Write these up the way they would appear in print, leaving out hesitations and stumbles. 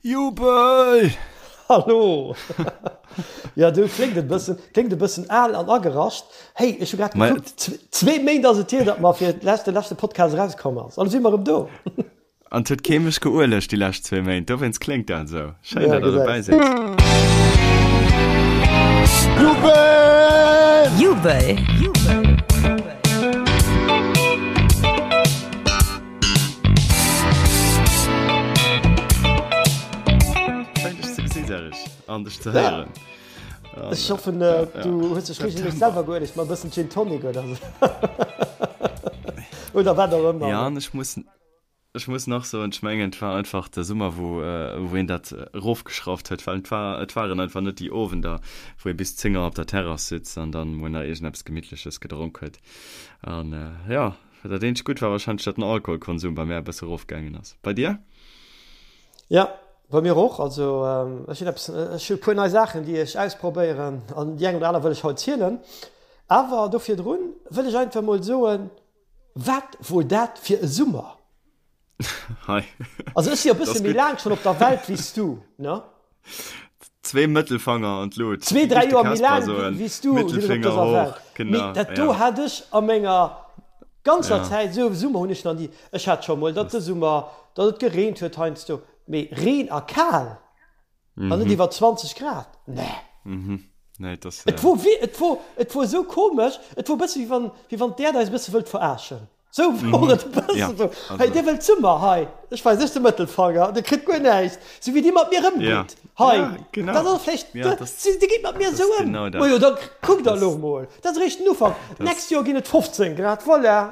Jubel! Hallo! Jo, du kléngt e bëssen, kléngt e bëssen al an agerascht. Hey, ech hu grad gekuckt, zwee Méint ass et hier, datt mer fir d'lescht, de leschte Podcast erauskomm ass. An elo si mer erëm do. An et huet kee mech geuelegt déi lescht zwee Méint, dowéinst kléngt dat esou. Schéin, datt der dobäi sidd. Jubel! Jubel! Schéin dech ze gesinn, Serge, an dech ze héieren. Ech hoffen, du hues dech regelméisseg selwer geuelegt, mat e bëssen Gin Tonic oder esou. Oder wat och ëmmer. Ja, an ech muss, ech muss nach soen, ech mengen, et war einfach de Summer, wou, wou een dat erofgeschrauft huet, well et war, et waren einfach net déi Owender, wou ee bis 10 Auer op der Terrass sitzt an dann mol nach iergendeppes Gemittleches gedronk huet. An, jo, dat eenzegt Gutt war wahrscheinlech, datt den Alkoholkonsum bei mär e bësse erofgaangen ass. Bei dir? Jo, bei mir och. Also ech hunn eppes, ech hu e puer nei Saachen, déi ech ausprobéieren an déi eng oder aner wëll ech haut zielen. Awer do virdrun wëll ech einfach mol soen, Wat wor dat fir e Summer? Hei. Also ech si jo e bësse méi laang schonn op der Welt wéi s du, ne? Zwee Mëttelfanger an d'Lut. Zwee, dräi Joer méi laang wéi s du sinn ech op dëser Welt. Mee dat do hat ech a menger ganzer Zäit, esou e Summer hunn ech nach ni. Ech hat scho mol, datt de Summer, datt et gereent huet heiansdo, mee Reen a kal an net iwwer 20 Grad, nee. Et wor, et wor, et wor esou komesch, et wor e bësse wéi wann, wéi wann d'Äerd eis e bësse wëllt verarschen. Sou wor et e bëssen sou, Hei, dir wëllt Summer, hei, ech weis iech de Mëttelfanger, dir kritt guer näischt. Sou wéi dir mat mir ëmgitt, hei, dat ass vläicht, dir gitt mat mir esou ëm, majo, da kuckt der elo mol, dat ass eréischt den Ufank, d'nächst Joer ginn et 15 Grad, voilà.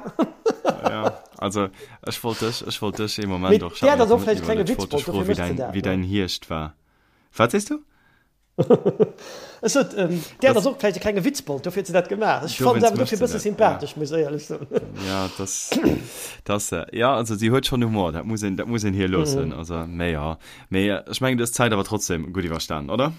Jo, also ech wollt dech, ech wollt dech ee Moment och, ech hat mech net iwwerluecht, ech wollt dech froen, wéi däin Hierscht war. Wat sees du? Ech sot, d'Äerd ass och vläicht e klenge Witzbold, dofir huet se dat gemaach. Ech fannen se awer dofir e bësse sympathesch, muss ech éierlech soen. Ja, dass, dass, ja, also si huet schonn Humor, dat muss een, dat muss een hir loossen. Also, mee jo, mee ech mengen, du hues d'Zäit awer trotzdem gutt iwwerstanen, oder?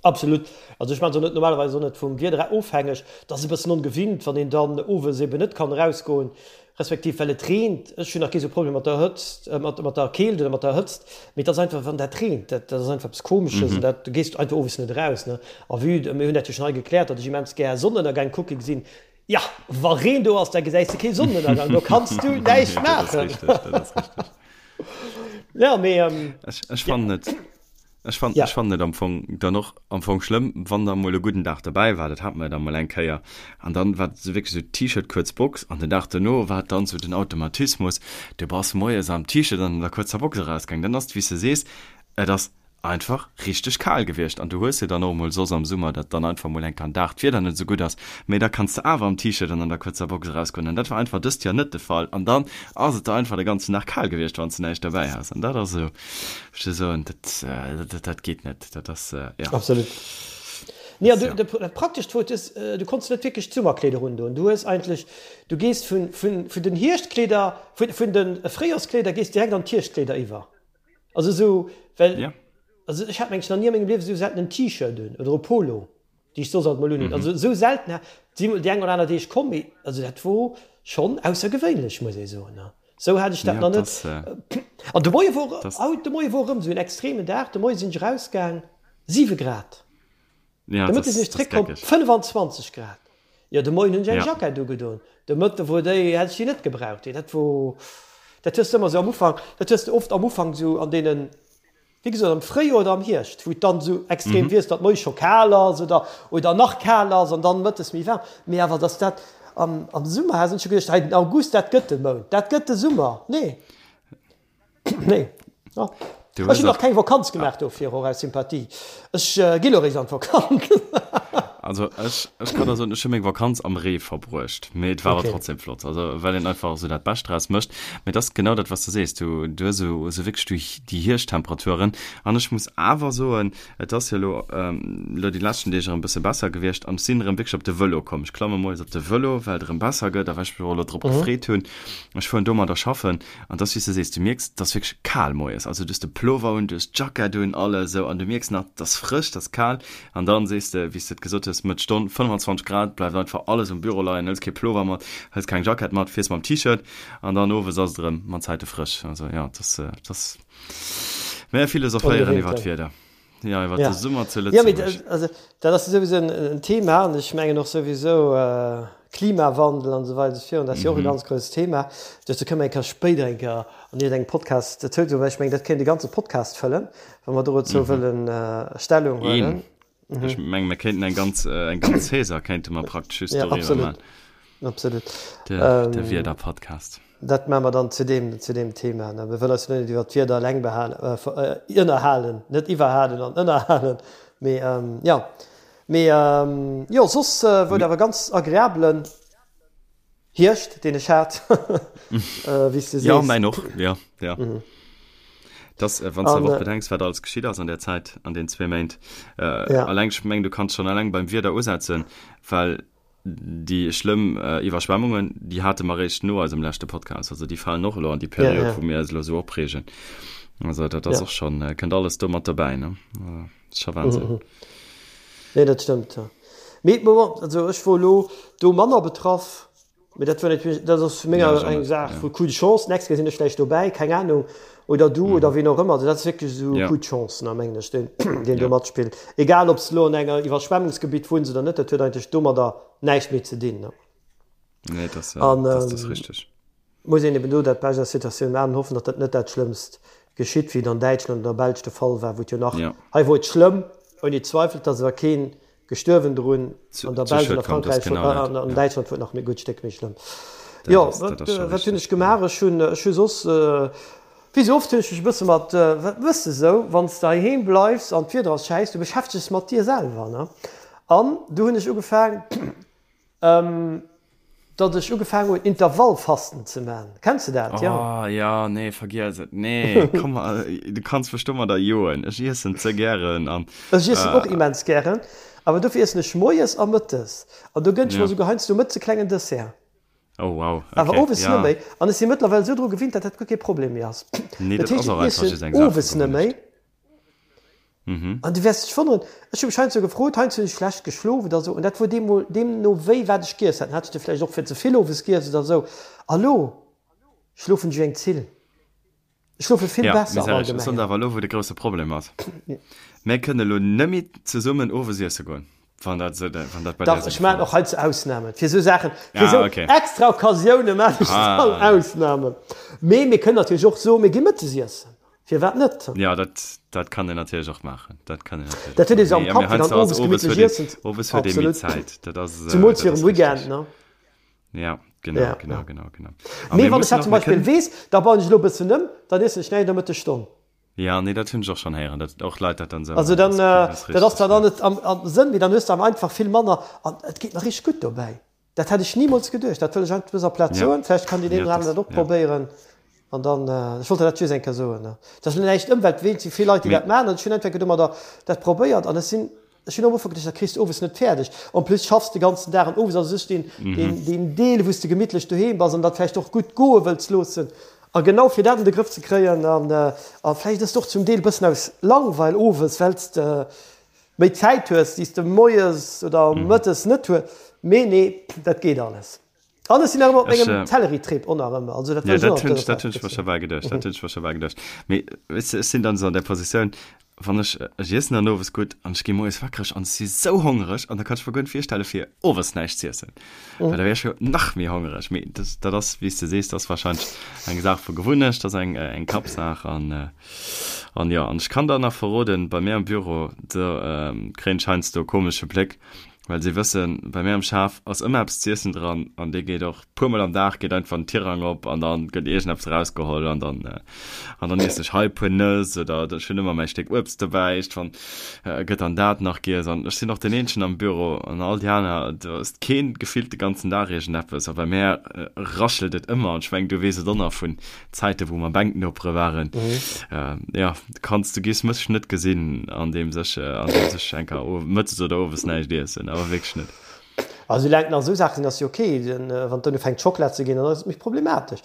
Absolut. Also ech maachen se och net normalerweis och net vum Wieder ofhängeg. Dat ass e bëssen ongewinnt, wann een dann owes eben net kann erausgoen. Respektiv well et reent. Ech hunn nach kee sou Problem mat der Hëtzt, mat mat der Keelt oder mat der Hëtzt, mee et ass einfach wann dat reent, dat dat ass einfach eppes Komesches an dat du gees einfach owes net eraus, ne. A vue de, mir hunn dat jo schonn hei gekläert, datt ech immens gär Sonnenënnergäng kucke gesinn. Jo, wa Reen do ass, da gesäis de kee Sonnenënnergang, do kanns du näischt Dat ass maachen. richteg, dat ass richteg. Jo, mee Ech ech fannen et. Ech fannen, Ja. ech fannen et am Fong dann och am Fong schlëmm, wann da mol e gudden Dag derbäi war, dat hat mer jo da mol eng Kéier, an dann war et sou wierklech sou T-Shirt, kuerz Box, an den Dag duerno war et dann sou den Automatismus, du bass moies am T-Shirt an an der kuerzer Box erausgaang, dann ass et wéi s de sees, et ass einfach richteg kal gewiescht an du hues jo dann och mol soss am Summer, datt dann einfach mol eng Kéier en Dag d'Wieder net esou gutt ass, mee da kanns de awer am T-Shirt an an der kuerzer Box erausgoen an dat war einfach dëst Joer net de Fall an dann ass et der einfach de ganzen Dag kal gewiescht, wann s de näischt derbäi has an dat ass esou. Ech wëll soen, dat, dat geet net. Dat ass, ja. Absolut. Nee, an du, dat Praktescht wor, du, du konns net wierklech d'Summerkleeder undoen. Du hues eigentlech, du gees vun, vun, vun den Hierschtkleeder, vun, vun de Fréijoerskleeder gees direkt an d'Hierschtkleeder iwwer. Also esou, well, Ja. also ech hat mengen ech nach ni a mengem Liewe esou selten en T-Shirt un oder e Polo, déi ech soss alt mol unhunn. Also esou selten, si mol déi eng oder aner Deeg komm, mee also dat wor schonn aussergewéinlech, muss ee soen. Sou hat ech dat nach net. An de Moie wor, haut de Moie wor erëm sou en extremen Dag. De Moie sinn ech erausgaang, 7 Grad. De Mëtte sinn ech zréckkomm, 25 Grad. Jo, de Moien hunn ech eng Jackett ugedoen. De Mëtte wor déi, hätt ech déi net gebraucht. Dat wor, dat hues de ëmmer sou am Ufank, dat hues de oft am Ufank sou an deenen, Wéi gesot, am Fréijoer oder am Hierscht, wou et dann esou extrem wiesst, datt moies scho kal ass oder, oder nach kal ass an dann mëttes méi waarm. Mee awer datt dat am, am Summer, hat ech scho geduecht, hei den August, dat gëtt de Mount, dat gëtt de Summer. Nee, nee. Jo. Ech hunn nach keng Vakanz gemaach dofir, och aus Sympathie. Ech gi lo eréischt an d'Vakanz. Also ech, ech kann der soen, ech hu meng Vakanz am Ree verbruecht, mee et war awer trotzdem flott, also well een einfach esou dat Bescht draus mécht. Mee et ass genau dat, wat s de sees, du, du hues esou, esou wierklech déi, déi Hierschtemperaturen. An ech muss awer soen, et ass jo elo, elo déi leschten Deeg erëm e bësse besser gewiescht an ech sinn erëm wierklech op de Vëlo komm. Ech klamme moies op de Vëlo, well et erëm besser gëtt a well ech mech och elo drop gefreet hunn. Ech fueren domadder schaffen an et ass, wéi s de sees, du mierks, et ass wierklech kal moies. Also du hues de Plover un, du hues d'Jackett un, alles esou an du mierks nach, et ass frësch, et ass kal. An dann sees de, wéi s de et gesot hues, Mëtt Stonn, 25 Grad, bleift einfach alles um Büro leien, hëls kee Plover mat, hëls keng Jackett mat, fiers mam T-Shirt an dann owes ass et erëm mat Zäite frësch. Also jo, et ass, et ass. Mä philosophéieren iwwer d'Wieder. Ja, iwwer de Summer zu Lëtzebuerg. Ja, mee also dat ass souwisou en Thema an ech mengen och souwisou Klimawandel an esou weider esou virun, dat ass jo och e ganz grousst Thema. Dozou kënne mer eng Kéier spéider eng Kéier an iergendengem Podcast dozou soen, well ech mengen, dat kéint e ganze Podcast fëllen, wa mer dozou wëllen Stellung huelen. Ech mengen, mir kéinten eng ganz, eng ganz Saison kéinte mer praktesch just doriwwer maachen. Absolut. De, de Wieder-Podcast. Dat maache mer dann zu deem, zu deem Thema. Ne? Mir wëllen eis jo net iwwer d'Wieder eleng behalen, äh, ënnerhalen, net iwwerhalen an ënnerhalen. Mee ähm, ja. Mee ähm, jo, soss äh, wor et awer ganz agreablen Hierscht, deen ech hat, äh, wéi s du sees. Ja, mäin och, ja, ja. Mhm. Das, äh, wann du awer och bedenks, wat alles geschitt ass an der Zäit, an den zwee Méint. Äh, ja. Alleng, ech meng, du kanns schon alleng beim Wieder usetzen, well Déi schlëmm Iwwerschwemmungen, déi hate mer eréischt no eisem leschte Podcast. Also déi falen och elo an déi Period, wou mir eis elo esou opreegen. Also dat ass och schonn, kënnt alles do mat dobäi, ne? Ass scho Wahnsinn. Nee, dat stëmmt, jo. Mee bon, also ech wor elo do manner betraff. Mee dat war natierlech, dat ass vu menger eng Saach vu Coup de chance. D'nächst Kéier sinn ech vläicht dobäi, keng Anung, oder du oder ween och ëmmer. Also dat ass wierklech esou Coup de chance, ne, mengen ech, deen, deen do matspillt. Egal, ob s de elo an enger Iwwerschwemmungsgebitt wunns oder net, dat huet eigentlech domadder näischt méi ze dinn, ne. Nee, dat ass, dat ass richteg. Muss een eben do dat Bescht aus der Situatioun maachen an hoffen, datt dat net dat Schlëmmst geschitt, wéi et an Däitschland oder der Belsch de Fall war, wou et jo nach, hei wor et schlëmm, ouni Zweifel, et ass awer keen gestuerwen drun, an der Belsch an a Frankräich an an Däitschland wor et nach e gutt Stéck méi schlëmm. Jo, wat wat hunn ech gemaach? Ech hunn ech hu soss, wéi sou oft hunn ech mech e bësse mat, wat méchs de sou, wann s de heiheem bleifs an d'Wieder ass schäiss, du beschäftegs mat dir selwer, ne? An du hunn ech ugefaang, Datt ech ugefaangen hunn Intervallfasten ze man. Kenns de dat? Jo. Oh ja, nee, vergiess et. Nee, komm, du kanns mech domadder joen. Ech iessen ze gären an. Ech iessen och immens gären, awer dofir iessen ech moies a mëttes. An do gënn ech mer esouguer heiansdo mëttes e klengen Dessert. Oh wow, okay. Awer owes net méi. An ech si mëttlerweil esou dru gewinnt, datt dat guer kee Problem méi ass. Nee, dat ass och einfach just eng Saach vu Gewunnecht. Owes net méi. An du wäers dech wonneren, ech hu mech heiansdo gefrot, heiansdo hunn ech schlecht geschlof oder esou, an dat wor deemol, deemno wéi wat ech giess hat, dann hat ech de vläicht och fir ze vill owes giess oder esou. A lo schlofen ech wéi eng Zill. Ech schlofe vill Ja, besser am mee Serge, ech soen der Allgemengen. awer elo, wou de grousse Problem ass, Mär kënne elo nëmme zesummen owes iesse goen, wann dat esou, wann dat bei dir Dach, esou ech de maachen Fall och ass. heiansdo Ausnamen. Fir esou Saachen, fir Ah, esou okay. extra Occasioune maachen ech dann Ah. Ausnamen. Mee mir kënnen natierlech och soen, mir gi mëttes iessen. Firwat net? Ja, dat, dat kann een natierlech och maachen. Dat kann een natierlech Dat huet ee sou am Kapp, fir dann owes gemittlech iessen ze. Owes huet ee méi Zäit. Dat ass, Zemools fir um Weekend, ne? Ja, genau, ja, genau, ja. genau, genau. Mee wann ech dat zum Beispill weess, da bauen ech elo e bëssen ëm, dann iessen ech näischt a Mëttesstonn. Ja, nee, dat hunn ech och schonn héieren, datt och Leit dat dann esou Also dann, dat ass zwar dann net am, am Sënn, mee dann hues de awer einfach vill manner an et geet mer richteg gutt dobäi. Dat hätt ech nimools geduecht. Dat wëll ech einfach op dëser Plaz soen. Vläicht kann deen een oder aneren dat och probéieren. An dann, ech wollt der dat just eng Kéier soen. Dat ass elo näischt Ëmweltween, et si vill Leit, déi dat maachen. An ech hunn einfach domadder dat probéiert an ech sinn, ech hunn am Ufank geduecht, dat kriss de owes net fäerdeg. En plus schaffs de ganzen Dag an owes ass u sech deen, deen, deen Deel, wou s de gemittlech doheem bass an dat vläicht och gutt goe wëlls loossen. A genau fir dat an de Grëff ze kréien an, a vläicht ass et och zum Deel e bëssen aus Langweil owes, well s de, méi Zäit hues, déi s de moies oder mëttes net hues. Mee nee, dat geet alles. An ech sinn nach ëmmer op mengem Zellerie-Trip, och nach ëmmer. Also dat wëll ech och nach op dëser Plaz Dat hunn ech mer scho bal geduecht, dat hunn ech mer scho bal geduecht. Mee weess de, ech sinn dann esou an där Positioun, wann ech, ech iessen dann owes gutt an ech gi moies wakreg an ech si sou hongereg an da kann ech mer guer net virstelle fir owes näischt z'iessen, well da wär ech jo nach méi hongereg. Mee dat, dat ass, wéi s de sees, dat ass warscheinlech eng Saach vu Gewunnecht, dat ass eng, eng Kappsaach an. An jo, an ech kann der nach verroden, bei mir am Büro, do kréien ech heiansdo e komesche Bléck, well si wëssen, bei mir am Schaf ass ëmmer eppes z'iessen dran an dee geet och puer mol am Dag geet einfach den Tirang op an dann gëtt iergendeppes erausgeholl an dann an dann iessen ech hei e puer Nëss oder ech hunn ëmmer mäi Stéck Uebst dobäi, iergendwann gëtt dann dat nach giess an ech sinn och deen eenzegen am Büro an all déi aner, do ësst keen gefillt de ganzen Dag iergendeppes a bei mär raschelt et ëmmer an ech mengen, du weess et och nach vun Zäite wou mer Bänknopere waren, jo, kanns du giss mech net gesinn an deem sech an deem sech enker mëttes oder owes näischt iessen, awer wierklech net. Also soulaang et nach esou Saache sinn, ass jo ok. Wann et dann ufänkt Schockela ze ginn, dann ass et méi problematesch.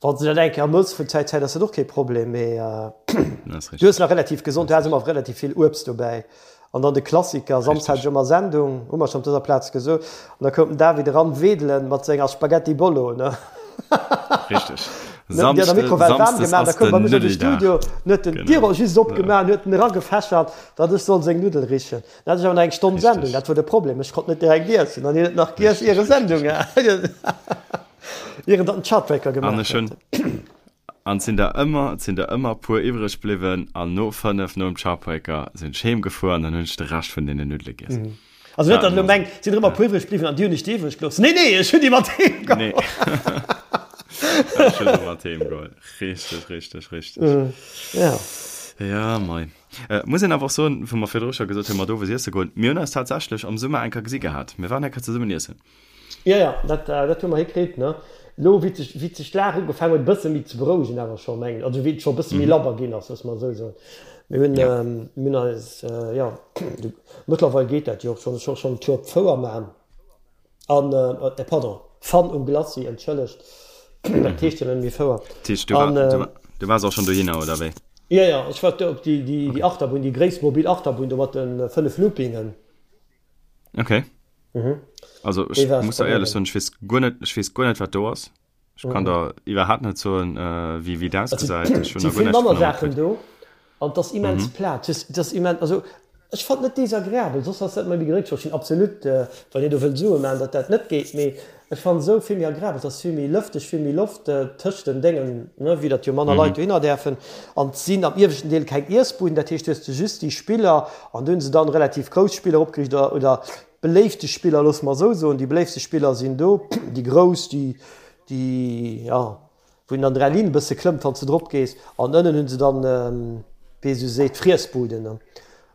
Wann s de dat eng Kéier mëss vun Zäit zu Zäit, ass dat och kee Problem, mee du hues nach relativ gesond, du has ëmmer relativ vill Uebst dobäi. An dann de Klassiker, Samsdes hat ech ëmmer Sendung, hu mer schonn op dëser Plaz gesot, an da koum den David eran wedelen mat senger Spaghetti Bolo, ne? Richteg. Huet an der Mikrowell waarm gemaach, da koum bei mech an de Studio, huet en d'Dier just opgemaach an huet en eragefächert, datt ech soll seng Nuddel richen. Dann hat ech awer nach eng Stonn Sendung, dat wor de Problem, ech konnt net direkt iessen an hien huet nach giess ier e Sendung hat, ier en datt den Chartbreaker gemaach huet. An et sinn der ëmmer, et sinn der ëmmer puer iwwreg bliwwen an no 5 nom Chartbreaker sinn ech heem gefuer an dann hunn ech de Rescht vun deene Nuddele giess. Also net, datt elo mengt, et sinn der ëmmer puer iwwreg bliwwen an déi hunn ech déi iwwreg gelooss. Nee, nee, ech hunn déi mat heem geholl. Nee. Ech hunn se mat heem geholl. Richteg, richteg, richteg. Ja. Ja, mei. Muss een awer och soen, wou mer virdru scho gesot hunn, mat owes iesse goen, mir hunn eis tatsächlech am Summer eng Kéier gesi gehat. Mir waren eng Kéier zesummen iessen. Jo, jo, dat, dat hu mer hikritt, ne. Elo, wéi sech, wéi sech d'Lag ugefaangen huet e bësse méi ze berouegen awer scho, mengen ech, also wéi et scho e bësse méi labber ginn ass, loosse mer esou soen. Mir hunn, mir hunn eis, jo, mëttlerweil geet dat jo och schonn, ech och schonn Tour op d'Fouer man an, pardon, Fun um Glacis, entschëllegt, dat heescht jo net méi Fouer. Dat heescht, du war, du, du waars och schonn dohinner, oder wéi? Jo, jo, ech war do op déi, déi, déi Achterbunn, déi gréisst mobil Achterbunn do mat de 5 Loopingen. Okay. Mhm. Also ech muss da éierlech soen, ech weess guer net, ech weess guer net wat do ass. Ech kann mhm. der iwwerhaapt net soen, äh, wéi wéi dat ausgesäit. Ech hunn da guer näischt manner Saachen do an das immens mhm. platt. Das, das immens, also ech fand net desagreabel, soss ass dat méi gedréckt. Ech sinn absolut, äh, wann Dir do wëllt Sue man, datt dat net geet, mee ech fand esou vill méi agreabel, dass vill méi lëfteg, vill méi Loft äh, tëscht den Déngen, ne, wéi datt jo manner mhm. Leit dohinner däerfen. An et sinn am ieweschten Deel keng Iessbuden, dat heescht, du hues just déi Spiller an do hunn se dann relativ grouss Spiller opgeriicht oder, oder Beléifte Spiller, loosse mer esou soen, déi beléiftste Spiller sinn do, déi grouss, déi, déi, jo, wou een an der Linn e bësse klëmmt, wann s de drop gees. An ënnen hu se dann, wéi ee sou seet, d'Friessbuden.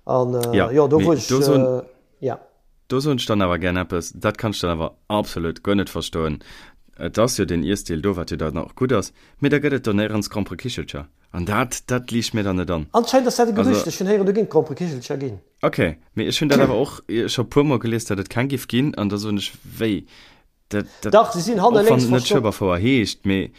An, jo, do wou ech, jo. Do soen ech dann awer gär eppes, dat kann ech dann awer absolut guer net verstoen. Et ass jo deen Iessdeel do, wat jo dann och gutt ass, mee da gëtt et do néierens Gromperekichelcher. An dat, dat liicht mir dann net an. Anscheinend ass dat e Gerücht, ech hunn héieren, do géing Gromperekichelcher ginn. Ok, mee ech hunn dat awer och scho puer mol gelies, datt et keng giff ginn, an da soen ech, wéi? Dat, dat, Dach, se sinn hanne och wann lénks et net verstoppt. Schueberfouer heescht, mee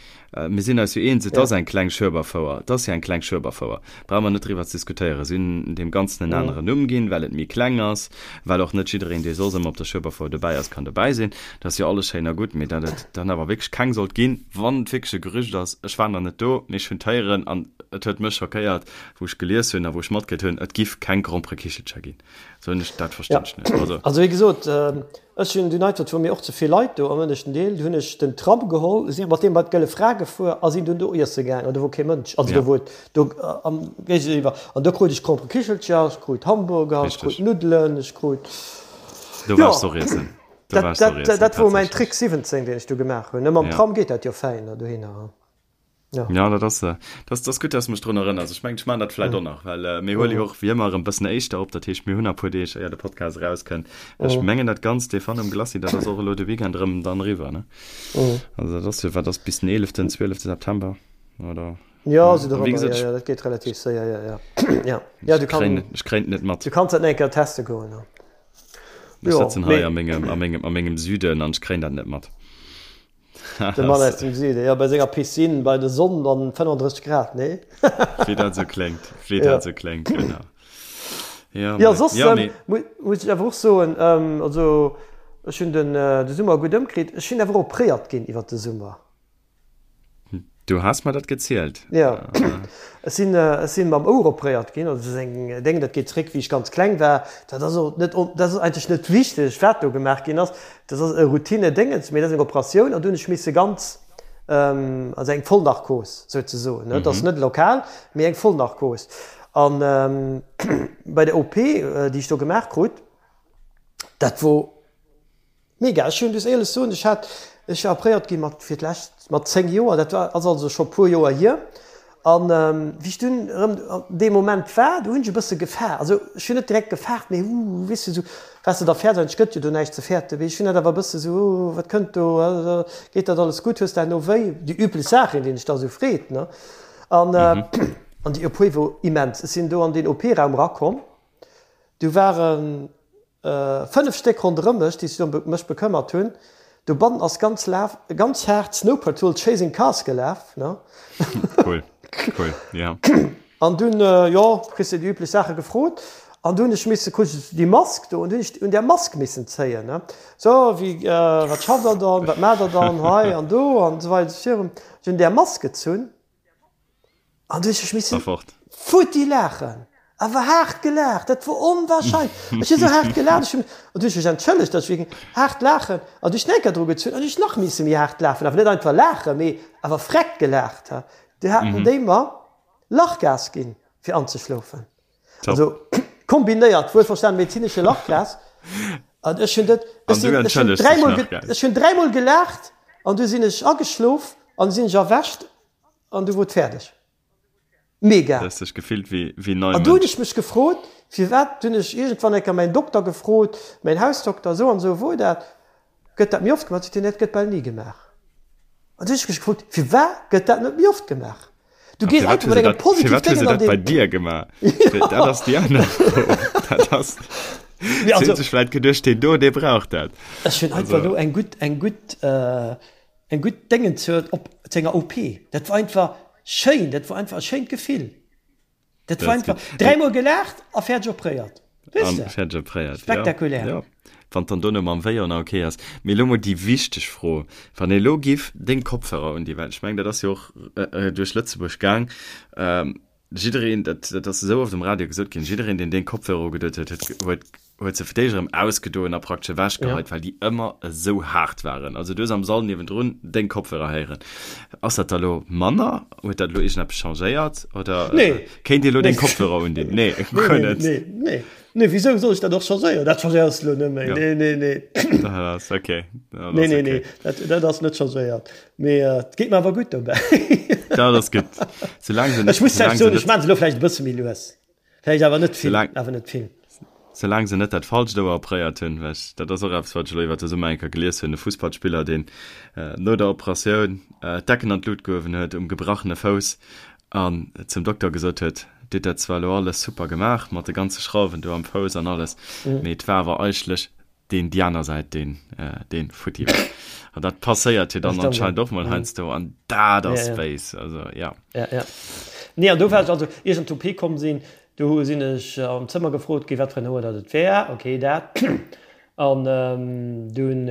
mir sinn eis jo eens, et ass eng kleng Schueberfouer, et ass jo eng kleng Schueberfouer, brauche mer net driwwer ze diskutéieren. Si hunn deem Ganzen en aneren Numm ginn, well et méi kleng ass, well och net jiddereen, dee soss ëmmer op der Schueberfouer dobäi ass, kann dobäi sinn. Dat ass jo alles schéin a gutt, mee datt et dann awer wierklech keng sollt ginn, wann et wierklech e Gerücht ass, ech war nach net do, mee ech hunn d'héieren an et huet mech schockéiert, wou ech gelies hunn a wou ech matkritt hunn, et giff keng Gromperekichelcher ginn, sou hunn ech, dat verstinn ech net. Also. Also wéi gesot, ech hunn dunn einfach, et wor mir och ze vill Leit do am ënneschten Deel, du hunn ech den Tram geholl, sinn mat deem bei d'Gëlle Fra gefuer a sinn dunn do iesse gaang an do wor kee Mënsch, also do wor et do am Géigeniwwer an do krut ech Gromperekichelcher, ech krut Hamburger, ech krut Nuddelen, ech krut, Do waars de och iessen. Do waars de och iessen, dat wor mäin Trick 17, deen ech do gemaach hunn. Mam Tram geet dat jo fäin dohinner. Ja. Ja, dat ass, äh, dat ass gutt, dass du mech drun erënners. Ech mengen, ech maachen dat vläicht och nach, well äh, mir huele jo och wéi ëmmer erëm bëssen éischter op. Dat heescht, mir hunn nach e puer Deeg, éier de Podcast erauskënnt. Ech mengen, dat Ganzt, dee Fun um Glacis, dat ass och elo de Weekend erëm dann eriwwer, ne? Also dat ass jo, wat ass bis den 11., 12. September, oder? Ja, sou dorëmmer, ja, ja, dat geet relativ séier, ja, ja. Ja, ja, du kann, kréien, ech kréien et net mat. Du kanns dat nach eng Kéier teste goen, ja. Ech sëtzen hei a mengem, a mengem, a mengem Süden an ech kréien dat net mat. De Mann aus dem Süden, jo, bei senger Piscine, bei der Sonn an 35 Grad, nee? Wéi dat esou kléngt, wéi dat esou kléngt, genau. Ja, jo, soss ja, ähm, muss ech awer och soen, ähm, also ech hunn den, äh, de Summer gutt ëmkritt. Ech sinn awer opréiert ginn iwwer de Summer. Du has mer dat gezielt. Jo, ech sinn, ech sinn mam Ouer opréiert ginn. Also dat ass eng Déng, dat geet zréck wéi ech ganz kleng war. Dat ass och net, dat ass eigentlech net wichteg, wat do gemaach ginn ass. Dat ass e Routine-Déngens, mee dat ass eng Operatioun an do hunn ech misse ganz, also eng Vollnarkos souzesoen, ne. Dat ass net lokal, mee eng Vollnarkos. An bei der OP, déi ech do gemaach krut, dat wor, Mega, ech hunn, muss éierlech soen, ech hat, ech war opréiert gi mat fir d'lescht mat 10 Joer, dat war, ass also scho puer Joer hier. An wéi ech dunn erëm an deem Moment war, do hunn ech e bësse gefaart, also ech hunn net direkt gefaart, mee uh, weess de, sou waars de da fäerts, eigentlech gëtt jo do näischt ze fäerten, mee ech hunn dat awer e bësse sou, uh, wat kënnt do, geet dat alles gutt, hues de herno wéi, déi üblech Saachen, déi een sech da sou freet, ne. An an déi OP wor immens, ech sinn do an deen OP-Raum erakomm, do waren 5 Stéck ronderëm mech, déi sech ëm mech bekëmmert hunn. Dobannen ass ganz laf, ganz haart Snow Patrol Chasing Cars gelaf, ne? Cool, cool, ja. An dunn, jo, kriss de déi üblech Saache gefrot. An du hunn ech misse, krut ech déi Mask do, an du hunn ech un där Mask missen zéien, ne. So, wéi, wat schafft Der dann, wat maacht Der dann hei an do an esou weider esou virun. Ech hunn där Mask gezunn an du hunn ech missen futti laachen, awer haart gelaacht, dat wor onwahrscheinlech. Ech hunn esou haart gelaacht, ech hunn, an du hunn ech mech entschëllegt, datt ech wierklech haart laachen, an du hunn ech nach eng Kéier dru gezunn an hunn ech nach misse méi haart laachen, awer net einfach laachen, mee awer vreckt gelaacht. Du haten déi mer Lachgas ginn, fir anzeschlofen. Top. Also kombinéiert, wuelverstanen medezinesche Lachgas. An ech hunn dat, ech sinn, ech hunn dräimol, ech hunn dräimol gelaacht an du sinn ech ageschlof an sinn ech erwächt an du wor et fäerdeg. Mega. Du hues dech gefillt wéi, wéi nei An du hunn ech mech gefrot, firwat, hunn ech iergendwann eng Kéier mäin Dokter gefrot, mäin Hausdokter, esou an esou wor dat, gëtt dat méi oft gemaach? Seet hien, nee, dat gëtt bal ni gemaach. An du hunn ech mech gefrot, firwat gëtt dat net méi oft gemaach? Du gees einfach mat engem positiv Déngen an den. Bei dir gemaach? Dat ass déi aner Fro. Dat ass. Si hunn sech vläit geduecht, deen do, dee brauch dat. Ech hunn einfach elo eng gutt, eng gutt, eng gutt Déngen zur, op, zu enger OP. Dat war einfach schéin, dat war einfach e schéint Gefill. Dat war einfach dräimol gelaacht a fäerdeg opréiert. Weess de? Fäerdeg opréiert, Spektakulär. Ja. Wann dann dono mam Wéi och nach okay ass. Mee elo mol déi wichteg Fro, Wann ee elo giff deng Kopfhörer un déi, well ech mengen dat ass jo och duerch Lëtzebuerg gaang, jiddereen, dat dat ass esou oft um Radio gesot ginn, jiddereen deen deng Kopfhörer ugedoen huet, huet huet huet se fir d'éischt erëm ausgedoen a praktesch ewechgeheit, ja. well déi ëmmer esou haart waren. Also du hues am Sall niewendrun deng Kopfhörer héieren. Ass dat da lo manner? Huet dat lo iergendeppes changéiert? Oder nee. äh, kéint Dir lo deng Kopfhörer undinn? Nee, nee, nee, net. Nee, nee. Nee, wieso soll ich dat och changéieren? Dat changéiers lo net méi. Ja. Nee, nee, nee. Dat ass okay. Dat nee, nee, okay. nee. Dat, dat ass net changéiert. Mee äh, et geet mir awer gutt dobäi. Dat ass gutt. Soulaang se net, Ech muss soulaang se net, ech maan se lo vläicht e bësse méi lues. Vläicht awer net vill, awer net vill. Soulaang se net dat falscht Ouer opréiert hunn, well ech, dat ass och eppes, wat ech elo iwwer de Summer eng Kéier gelies hunn, e Fussballspiller, deen no der Operatioun d'Decken an d'Lut gehuewen huet um gebrachene Fouss an zum Dokter gesot huet, Dir hutt dat zwar elo alles super gemaach mat de ganze Schrauwen do am Fouss an alles, mee et war awer eigentlech deen déi aner Säit deen deen futti war. An dat passéiert jo dann anscheinend och mol heiansdo an dat ass béis, also ja. Ja, ja. Nee, an do war ech also, ier ech an d'OP komm sinn, do sinn ech am Zëmmer gefrot ginn, wat fir en Ouer dat et wär. Ok, dat. An dunn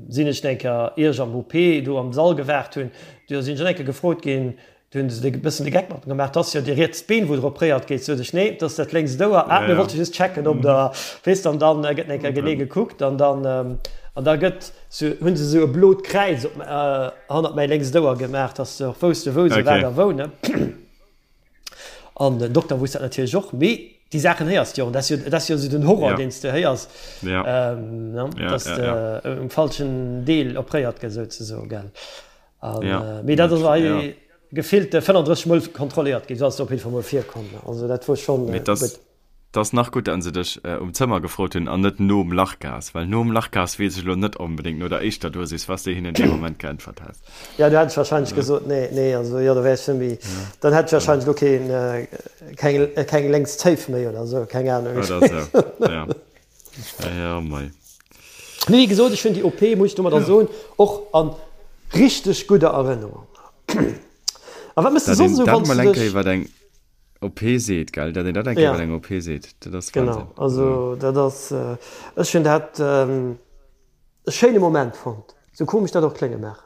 sinn ech eng Kéier, ier ech am OP do am Sall gewaart hunn, do sinn ech och eng Kéier gefrot ginn, Do hunn se e bëssen de Geck mat mer gemaach, 't ass jo déi riets Been, wou der opréiert gétt. Sot ech, nee, 't ass dat lénkst Ouer. Ah, mir wollte just checken, ob der, weess de. An dann gëtt eng Kéier genee gekuckt an dann, an da gëtt sou, hunn se sou e blot Kräiz op, hannert mäi lénkst Ouer gemaach, dass se och wousste wou se wat a wou, ne. An den Dokter wousst dat natierlech och, mee déi Saachen héiers de jo. An dat ass jo, dat ass jo sou den Horror, deen s de héiers, ne, dass de um falschen Deel opréiert gëss, souzesoen, gell. An, ja, äh, mee dat ass hei ja. gefillte 35 Mol kontrolléiert ginn, ass op jeden Fall mol virkomm. Also dat wor schon äh, das, das nach gutt an se dech äh, um Zëmmer gefrot hunn an net nom Lachgas, well nom Lachgas weess ech lo net onbedéngt no der éischter Dosis, was de hinnen dee Moment geäntwert häss. Ja, du hätt ech wahrscheinlech ja. gesot, nee, nee, also ja, da wär ech net méi, ja. dann hätt ech wahrscheinlech lo keen, äh, keng, äh, keng lénks Zéif méi oder sou, keng Ahnung. Oder sou, ja. Ja, mei. Mee wéi gesot, ech hunn déi OP, muss ech domadder soen, och a richteg gudder Erënnerung. A wat méchs de soss esou, wann s du dech. Wat eng OP seet, gell? Dat een dat eng Kéier, wat eng OP seet, dat ass Wahnsinn. Genau, also dat ass, ech hunn dat e schéine Moment fonnt, sou komesch dat och klénge mag.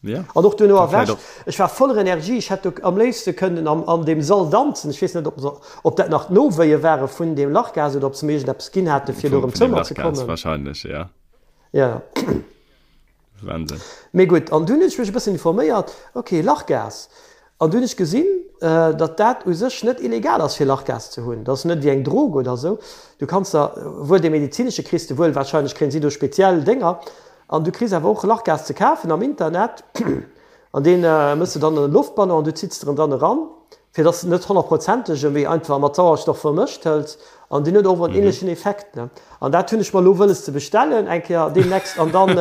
Ja. An och duerno erwächt. Ech war voller Energie, ech hätt do am léifste kënnen am, an deem Sall danzen. Ech weess net, ob se, ob dat nach d'Nowéie ware vun deem Lachgas oder ob se mir iergendeppes ginn hate fir do erëm Zëmmer ze kommen. Wahrscheinlech, ja. Ja. Wahnsinn. Mee gutt, an dunn hunn ech mech e bëssen informéiert, ok, Lachgas. An dunn hunn ech gesinn, datt dat u sech net illegal ass fir Lachgas ze hunn. Dat ass net wéi eng Drog oder esou. Du kanns der wuel dee medezinesche kriss de wuel, wahrscheinlech kréien si do speziell Dénger. An du kriss awer och Lachgas ze kafen am Internet an deen mëss de dann an e Loftballon an du zitts der en dann eran, fir dass de net honnertprozentege mee einfach mat Sauerstoff vermëscht hëls an deen huet och en ähnlechen Effekt. Ne? An dat hunn ech mer elo wëlles ze bestellen eng Kéier deemnächst an dann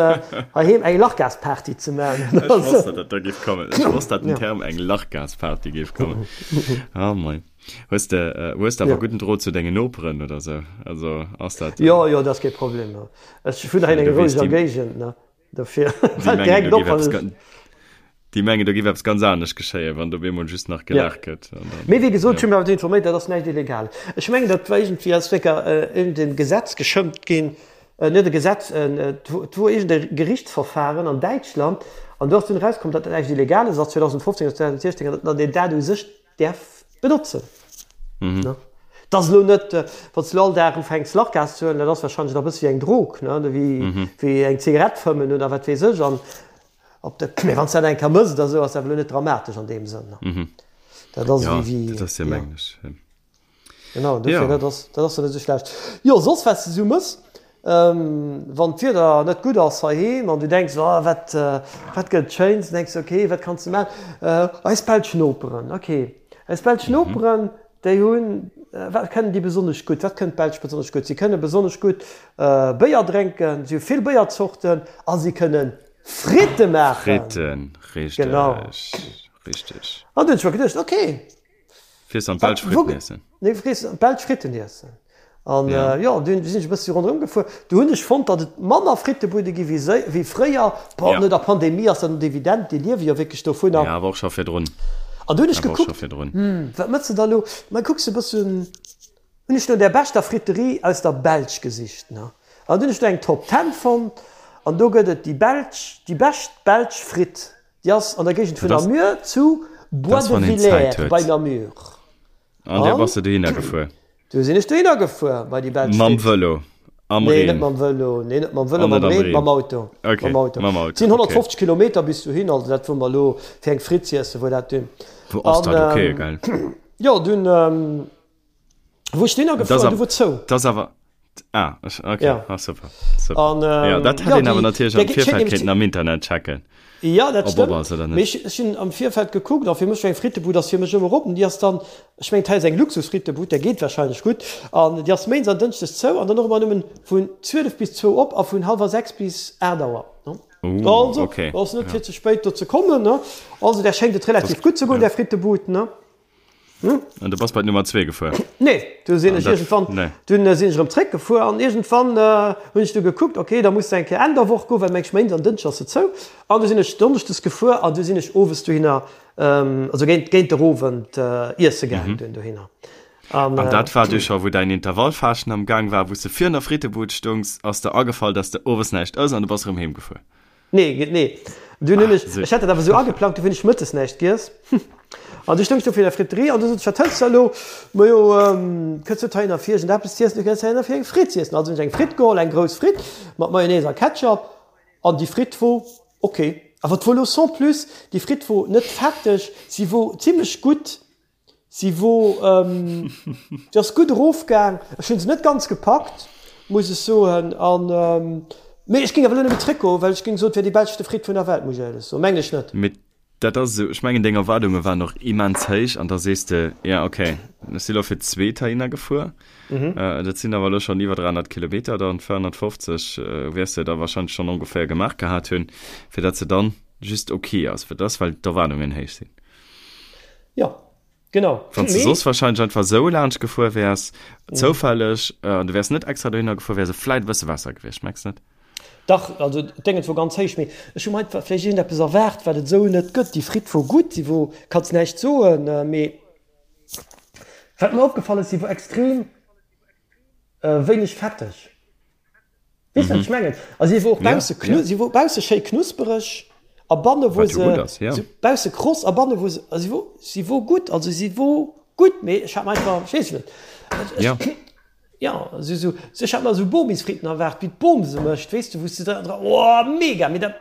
heiheem eng Lachgasparty ze maachen. Ech wosst, datt dat da géif kommen. Ech wosst, datt den Term eng Lachgasparty géif kommen. Oh mei. Hues de, hues de awer gudden Drot zu dengen Noperen oder sou? Also ass dat. Jo, jo, dat ass kee Problem. Ech wunnen hei an enger roueger Géigend, ne? Dofir fält direkt op, wann ech. Déi mengen, do géif eppes ganz anescht geschéien, wann do op eemol just nach gelaacht gëtt. Mee wéi gesot, ech hu mech awer informéiert, dat ass näischt Illegales. Ech mengen, dat war iergendwéi, ass wécker iergendee Gesetz geschëmmt ginn, net e Gesetz, et wor iergend e Gerichtsverfahren an Däitschland an do ass dunn erauskomm, datt dat näischt Illegales ass, 2015 oder 2016, an datt een dat u sech däerf benotzen. Et ass elo net, wann s de elo all Dag ufänks Lachgas ze huelen, dat ass warscheinlech nach e bësse wéi eng Drog, ne, wéi eng Zigarett fëmmen oder wat weess ech. An Op de, mee wann s dat eng Kéier mëss oder sou, ass dat elo net dramatesch an deem Sënn. Mhm. Dat ass ja, wéi, wéi, dat ass ja, mengen ech. Genau, dofir, ja. dat ass, dat ass net esou schlecht. Jo, soss wat s de sou mëss, ähm, wann d'Wieder net gutt ass heiheem an du denks, oh, wat, äh, wat gëtt Schéins, denks du, okay, wat kanns de maachen? Äh, eis belsch Noperen, okay. Eis belsch mhm. Noperen, déi hunn, äh, wat kënnen déi besonnesch gutt? Wat kënnen d'Belsch besonnesch gutt? Si kënne besonnesch gutt äh, Béier drénken, si hu vill Béierzorten a si kënnen Fritte maachen. Fritten, richteg. Genau. Richteg. An du hunn ech mer geduecht, okay. Fiers an d'Belsch Fritten iessen. Nee, fiers an d'Belsch Fritten iessen. An ja. jo, dunn sinn ech e bëssi ronderëm gefuer. Du hunn ech fonnt, datt et manner Frittebude gi wéi, wéi fréier. Bon, ja. no der Pandemie ass dat net evident, déi liewe jo wierklech dovunner. Ja, awer och scho virdrun. An du hunn ech gekuckt, hm, wat mëss de da lo? Ma kucks e bëssen. Hunn ech no der beschter Friterie aus der Belsch gesicht, ne? An dunn hunn ech do eng Top Ten fonnt an do gëtt et déi belsch, déi bescht belsch Fritt, déi ass an der Géigend vun Namur zu Bois de Villers bei Namur. An du bass de dohinner gefuer? Du sinn ech dohinner gefuer bei déi belsch Fritt. Mam Vëlo, am Reen? Nee, net mam Vëlo, nee net mam Vëlo, mam Reen, mam Auto. Ok, mam Auto. Mam Auto, Et sinn 150 Kilometer bis dohin, also dat wor mer elo fir eng Fritt z'iessen, wor dat dunn. Wou ass dat? Ok, geil. Jo, dunn wou ech dohinner gefuer, du wor zou. Dat ass awer, ah, ok, ja. Ah, super, super. An, ähm, ja, dat hätt ja, een awer natierlech am Virfeld kéinten am Internet checken. Ja, dat stëmmt. Ass oder net. Mee ech hunn am Virfeld gekuckt, a fir mech war eng Frittebud ass fir mech ëmmer op, an déi ass dann, ech mengen, hei ass eng Luxusfrittebud, där geet warscheinlech gutt, an déi ass méindes an dënschdes zou an dann och ëmmer nëmmen vun 12 bis zwou op a vun hallwer 6 bis 8 Auer. Uh, also, okay. ass net fir ze spéit do ze kommen, ne? Also, där schéngt et relativ gutt ze goen, där Frittebud, ne? Hm? An du bass bei d'Nummer 2 gefuer? Nee, du sinn ech iergendwann, nee. dunn äh, sinn ech erëm zréck gefuer an iergendwann äh, hunn ech du gekuckt, okay, da muss du eng Kéier Enn der Woch goen, well meng ech Méindes an Dënschdes ass se zou. An du sinn ech Donneschdes gefuer an du sinn ech owes dohinner, ähm, also géint, géint der Owend äh, iesse gaangen mhm. dunn dohinner. An, an dat war du scho, wou däin Intervallfaaschten am Gang war, wou s de virun der Frittebud stungs, ass der agefall, dass de owes näischt ëss an du bass erëm heem gefuer. Nee, nee. Dunn hunn ech, ech hat dat awer esou ageplangt, du hunn ech mëttes näischt giess. An du stoungs do fir der Friterie an du sot ech, wat hëls de elo? Majo, kënns net heihinner fir iergendeppes z'iessen, du kënns heihinner fir eng Fritt z'iessen. Also hunn ech eng Fritt geholl, eng grouss Fritt mat Mayonnaise a Ketchup. An déi Fritt wor ok. Awer 't wor elo sans plus, déi Fritt wor net fetteg, si wor zimlech gutt. Si wor, si ass gutt erofgaang. Ech hunn se net ganz gepackt, muss ech soen. An, mee ech géing awer elo net méi zréckgoen, well ech géing soen, et wär déi beschte Fritt vun der Welt, muss ech éierlech soen. Mengen ech net. Mee dat ass esou, ech mengen deng Erwaardunge waren och immens héich an da sees de, jo ok, ech si lo fir d'zweet heihinner gefuer, dat sinn awer elo schonn iwwer 300 Kilometer, dann 450 wäers de da warscheinlech schonn ongeféier gemaach gehat hunn, fir datt se dann just ok ass, fir dass, well d'Erwaardungen héich sinn. Jo, genau. Wann s de soss wahrscheinlech einfach esou laanscht gefuer wäers, zoufälleg, an du wäers net extra dohinner gefuer, wär se vläit e bësse besser gewiescht, mengs net? Dach, also d'Déngens wor ganz héich, mee ech hu mer einfach vläicht iergendeppes erwaart, wat et esou net gëtt. Déi Fritt wor gutt, si wor, kanns näischt soen, mee wat mer opgefall ass, si wor extrem wéineg fetteg. Weess wat ech mengen? A si wor och bausse knu, si wor bausse schéi knuspereg a banne wor se, se bausse kross a banne wor se, a si wor, si wor gutt, also si wor gutt, mee ech hat mer einfach, ech weess net, ech, jo, esou, esou, ech hat mer esou Bomisfritten erwaart, wéi d'Bom se mécht, weess de, wou s de dra, oh mega, mee dat.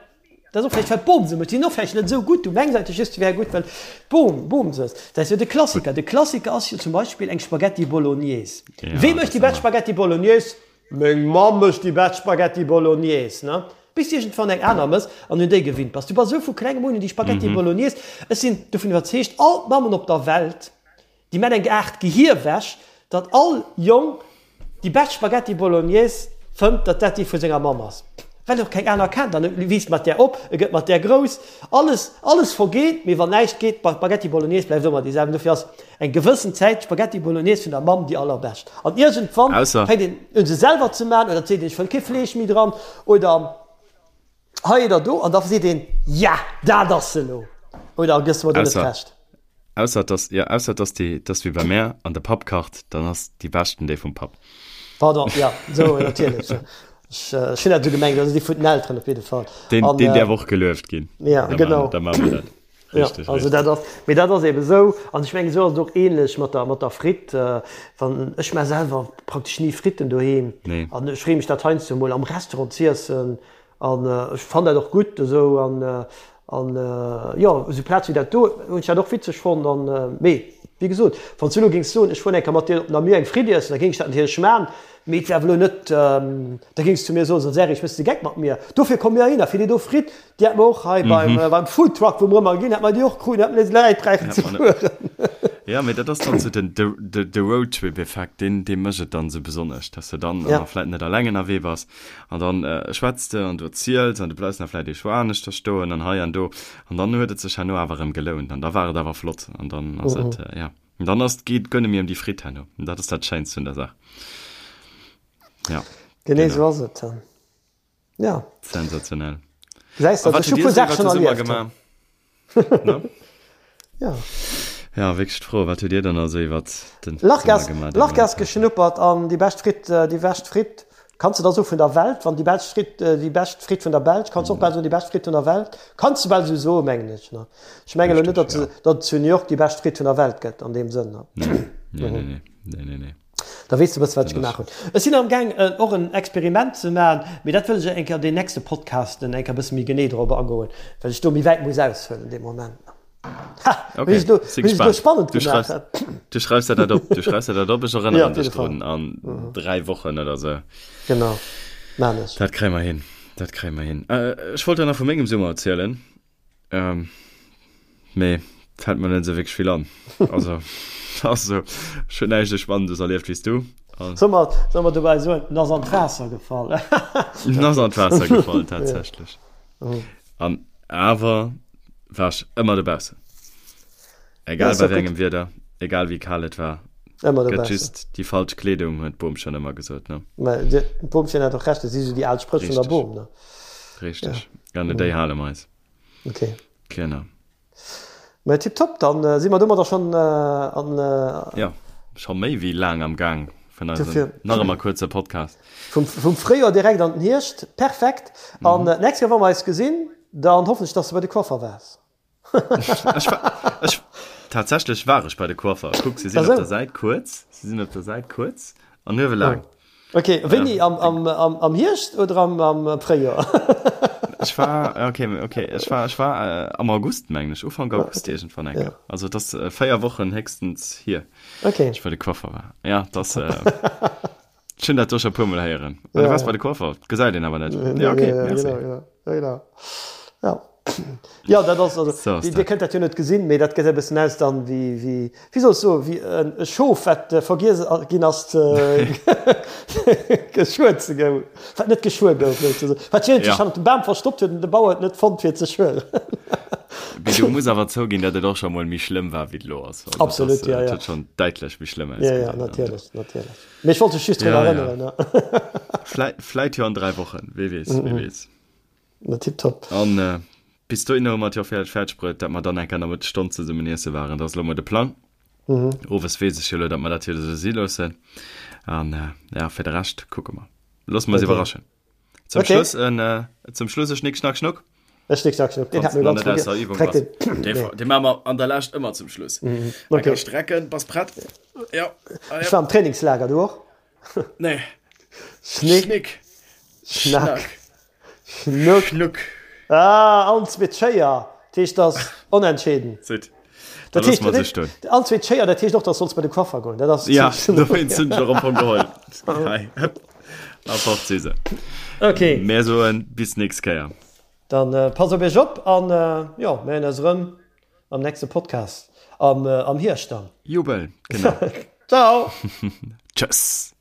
Dat ass och vläicht, well d'Bom se mécht. Déi sinn och vläicht net esou gutt. Du mengs eigentlech just, se wäre gutt, well d'Bom, Bom se ass. Dat ass jo de Klassiker. De Klassiker ass jo zum Beispill eng Spaghetti Bolognese. Wee mécht déi bescht Spaghetti Bolognese? Meng Mamm mécht déi bescht Spaghetti Bolognese, ne? Bis du iergendwann eng aner mëss an un déi gewinnt bass. Du bass esou vu klengem un un déi Spaghetti Bolognese. Ech sinn dovun iwwerzeegt, all d'Mammen op der Welt, Déi man eng Aart Gehierwäsch, datt all Jong déi bescht Spaghetti Bolognese fënnt, datt dat déi vu senger Mamm ass, well en och keng aner kennt. An e wiisst mat där op, e gëtt mat där grouss, alles, alles vergeet, mee wann näischt geet, d'Spaghetti Bolognese bleift ëmmer déi selwecht. Dofir ass eng gewëssen Zäit d'Spaghetti Bolognese vun der Mamm déi allerbescht. An iergendwann fänkt een un se selwer ze man, oder et seet een, ech wëll kee Fleesch méi dran, oder hei oder do, an da seet een, ja, dat ass se elo. Oder gëss du mer do net Recht? Ausser dass, jo, ausser dass déi, dass wéi bei mär an de Papp kacht, dann ass déi beschten déi vum Papp. Pardon, jo, sou, natierlech. Ech, ech hunn dat esou gemengt, also déi vun den Elteren op jidde Fall. Deen, deen däerf och gelueft ginn. Ja, genau. Da maache mer dat. Richtig, ja, also dat ass, mee dat ass eben esou, an ech mengen esou ass et och ähnlech mat der, mat der Fritt. Wann, ech maa selwer praktesch ni Fritten doheem. Nee. An ech freeë mech dat heiansdo emol am Restaurant z'iessen. An ech fann dat och gutt esou. An, an jo, esou Plaz wéi dat do hunn ech dat och witzeg fonnt. An, mee wéi gesot, wann s du elo géings soen, ech fueren eng Kéier mat dir op Namur eng Fritt iessen, da géing ech dat natierlech maan. Mee et wär awer elo net, da géings du zu mir soen, so Serge, méchs de Geck mat mir? Dofir komme mir heihinner, fir déi do Fritt, déi hätte mer och hei beim, beim Foodtruck, wou mer ëmmer ginn, hätte mer déi och kruten, hätte mer net läit bräichen ze fueren. Jo, mee dat ass dann esou den, de, de Roadtrip-Effekt, deen, dee mécht et dann esou besonnesch, dass de dann ja. vläit net alleng ënnerwee bass an dann schwätz de an du erziels an du bleifs nach vläit ee Choix aneschter stoen an hei an do an dann huet et sech herno awer erëm gelount an da war et awer flott an dann ass et, ja. An dann ass, geet guer net méi ëm déi Fritt herno. An dat ass dat Schéinst vun der Saach. Ja. Genee esou ass et. Ja. Sensationell. Gesäis de, ech hu puer Saache schonn erlieft. Ne? Ja. Ja, wierklech d'Fro, wat hutt Dir dann also iwwert den Summer gemaach? Lachgas geschnuppert an déi bescht Fritt, déi bescht Fritt, kanns de da soe vun der Welt, wann déi bescht Fritt, déi bescht Fritt vun der Belsch, kanns de och bal soen déi bescht Fritt vun der Welt, kanns de bal esou soen, mengen ech, ne? Ech mengen elo net, datt datt et zu New York déi bescht Fritt vun der Welt gëtt an deem Sënn. Nee, nee, nee, nee, nee, nee, nee. Da weess de e bësse wat ech gemaach hunn. Ech sinn am gaang och en Experiment ze maachen, mee dat wëll ech eng Kéier an den nächste Podcasten eng Kéier e bësse méi genee drop agoen, well ech do méi wäit muss aushuelen dee Moment. Ha! Okay, Hunn ech elo, si hunn ech elo gespaant. spannend Du gemaach. schreifs, du schreifs der dat op, du schreifs der dat op, ech Ja, erënneren op dech jidde Fall. drun an 3 Wochen oder sou. Genau, maan ech. Dat kréie mer hin, dat kréie mer hin. Ech wollt der nach vu mengem Summer erzielen. Ähm, mee fällt mir net esou wierklech vill an. Also, also ech hunn näischt esou Spannendes erlieft wéi s du. An Soll mer, soll mer dobäi soen, en ass an d'Waasser gefall. En ass an d'Waasser gefall, tatsächlech. An awer war ech ëmmer dobaussen. Egal bei wéi engem Wieder, egal wéi kal et war. Ëmmer Gëtt just déi falsch Kleedung, huet d'Boomchen ëmmer gesot, ne? Mä d'Boomchen hat och Recht, dat si sou déi al Spréch vun der Boom, ne? Richteg. Ja. An un déi hale mer eis. Ok. Genau. Mä tiptop, dann si mer domadder schonn an. Jo, scho méi wéi laang am Gaang vun eisem nach ëmmer kuerze Podcast. Vum, vum Fréijoer direkt an den Hierscht, perfekt. An d'nächst Kéier, wa mer eis gesinn, dann hoffen ech, dass de bei de Coiffer waars. Ech war, ech, tatsächlech war ech bei de Coiffer. Kuck, se sinn op der Säit kuerz, se sinn op der Säit kuerz an uewe laang. Okay, wéini? Am, am, am, am Hierscht oder am, am Fréijoer? Ech war, okay, okay, ech war, ech war am August, mengen ech, Ufank August iergendwann eng Kéier. Also et ass 4 Wochen héchstens hier, Okay. ech bei de Coiffer war. Ja, et ass, ech hunn dat do scho e puermol héieren. Ah, du waars bei de Coiffer, gesäit een awer net. Ja, okay, merci. Genau, genau, genau. Ja. Ja, dat ass, also, So ass Dir dat. kënnt dat jo net gesinn, mee dat gesäit e bëssen aus dann wéi, wéi, wéi soll ech soen, wéi en e Schof, wat vergiess ginn ass ze geschuer ze goun, wat net geschuer gouf, souzesoen, wat iergendwéi Ja. hannert dem Bam verstoppt huet an de Bauer et net fonnt fir et ze schueren. Mee du muss awer zouginn, datt et och scho mol méi schlëmm war, wéi et elo ass. Also, dat Absolut, ass, ja, et ja. huet schonn däitlech méi schlëmm Ja, ja, ausgesinn. natierlech, natierlech. Mee ech wollt dech just drun Ja, ja. erënneren, ne. Vläi, vläit jo an 3 Wochen, wee weess, wee weess. Na tiptop. An bis dohinner hu mer et jo fäerdeg fäerdeg bruet, dat mer dann eng Kéier Nomëttesstonn zesummen iesse waren. Dat ass elo mol de Plang. Owes weess ech jo elo, dat mer dat jo esou si loossen. An ja, fir de Rescht kucke mer. Loosse mer eis Okay. iwwerraschen. Zum Okay. Schluss en, zum Schluss e Schnick, Schnack, Schnuck. E Schnick, Schnack, Schnuck. Deen Wanns hat mir de nach ganz net aus vergiess. der Übung Dreck bass. den. Dee, Nee. dee maache mer an der Lescht ëmmer zum Schluss. Eng Okay. Kéier strecken. Bass prett? Jo. Allez, Ech op. war am Trainingslager, du och? Nee. Schnick, Schnick, Schnack, Schnack. Schnuck. Schnuck. Ah, allen zweet Schéier. Dat heescht, dat ass onentscheeden. Zit. Da Dat loosse heescht, mer se stoen. allen zweet Schéier, dat heescht och, dass solls bei de Coiffer goen. Dat ass. Ja, dowéinst hunn ech och am Fong geholl. Hei, hëpp, a fort si se. Okay. Mär soen bis nächst Kéier. Dann passt op iech op an jo, mir héieren eis erëm am nächste Podcast am, am Hierscht dann. Jubel, genau. Ciao. Tschëss.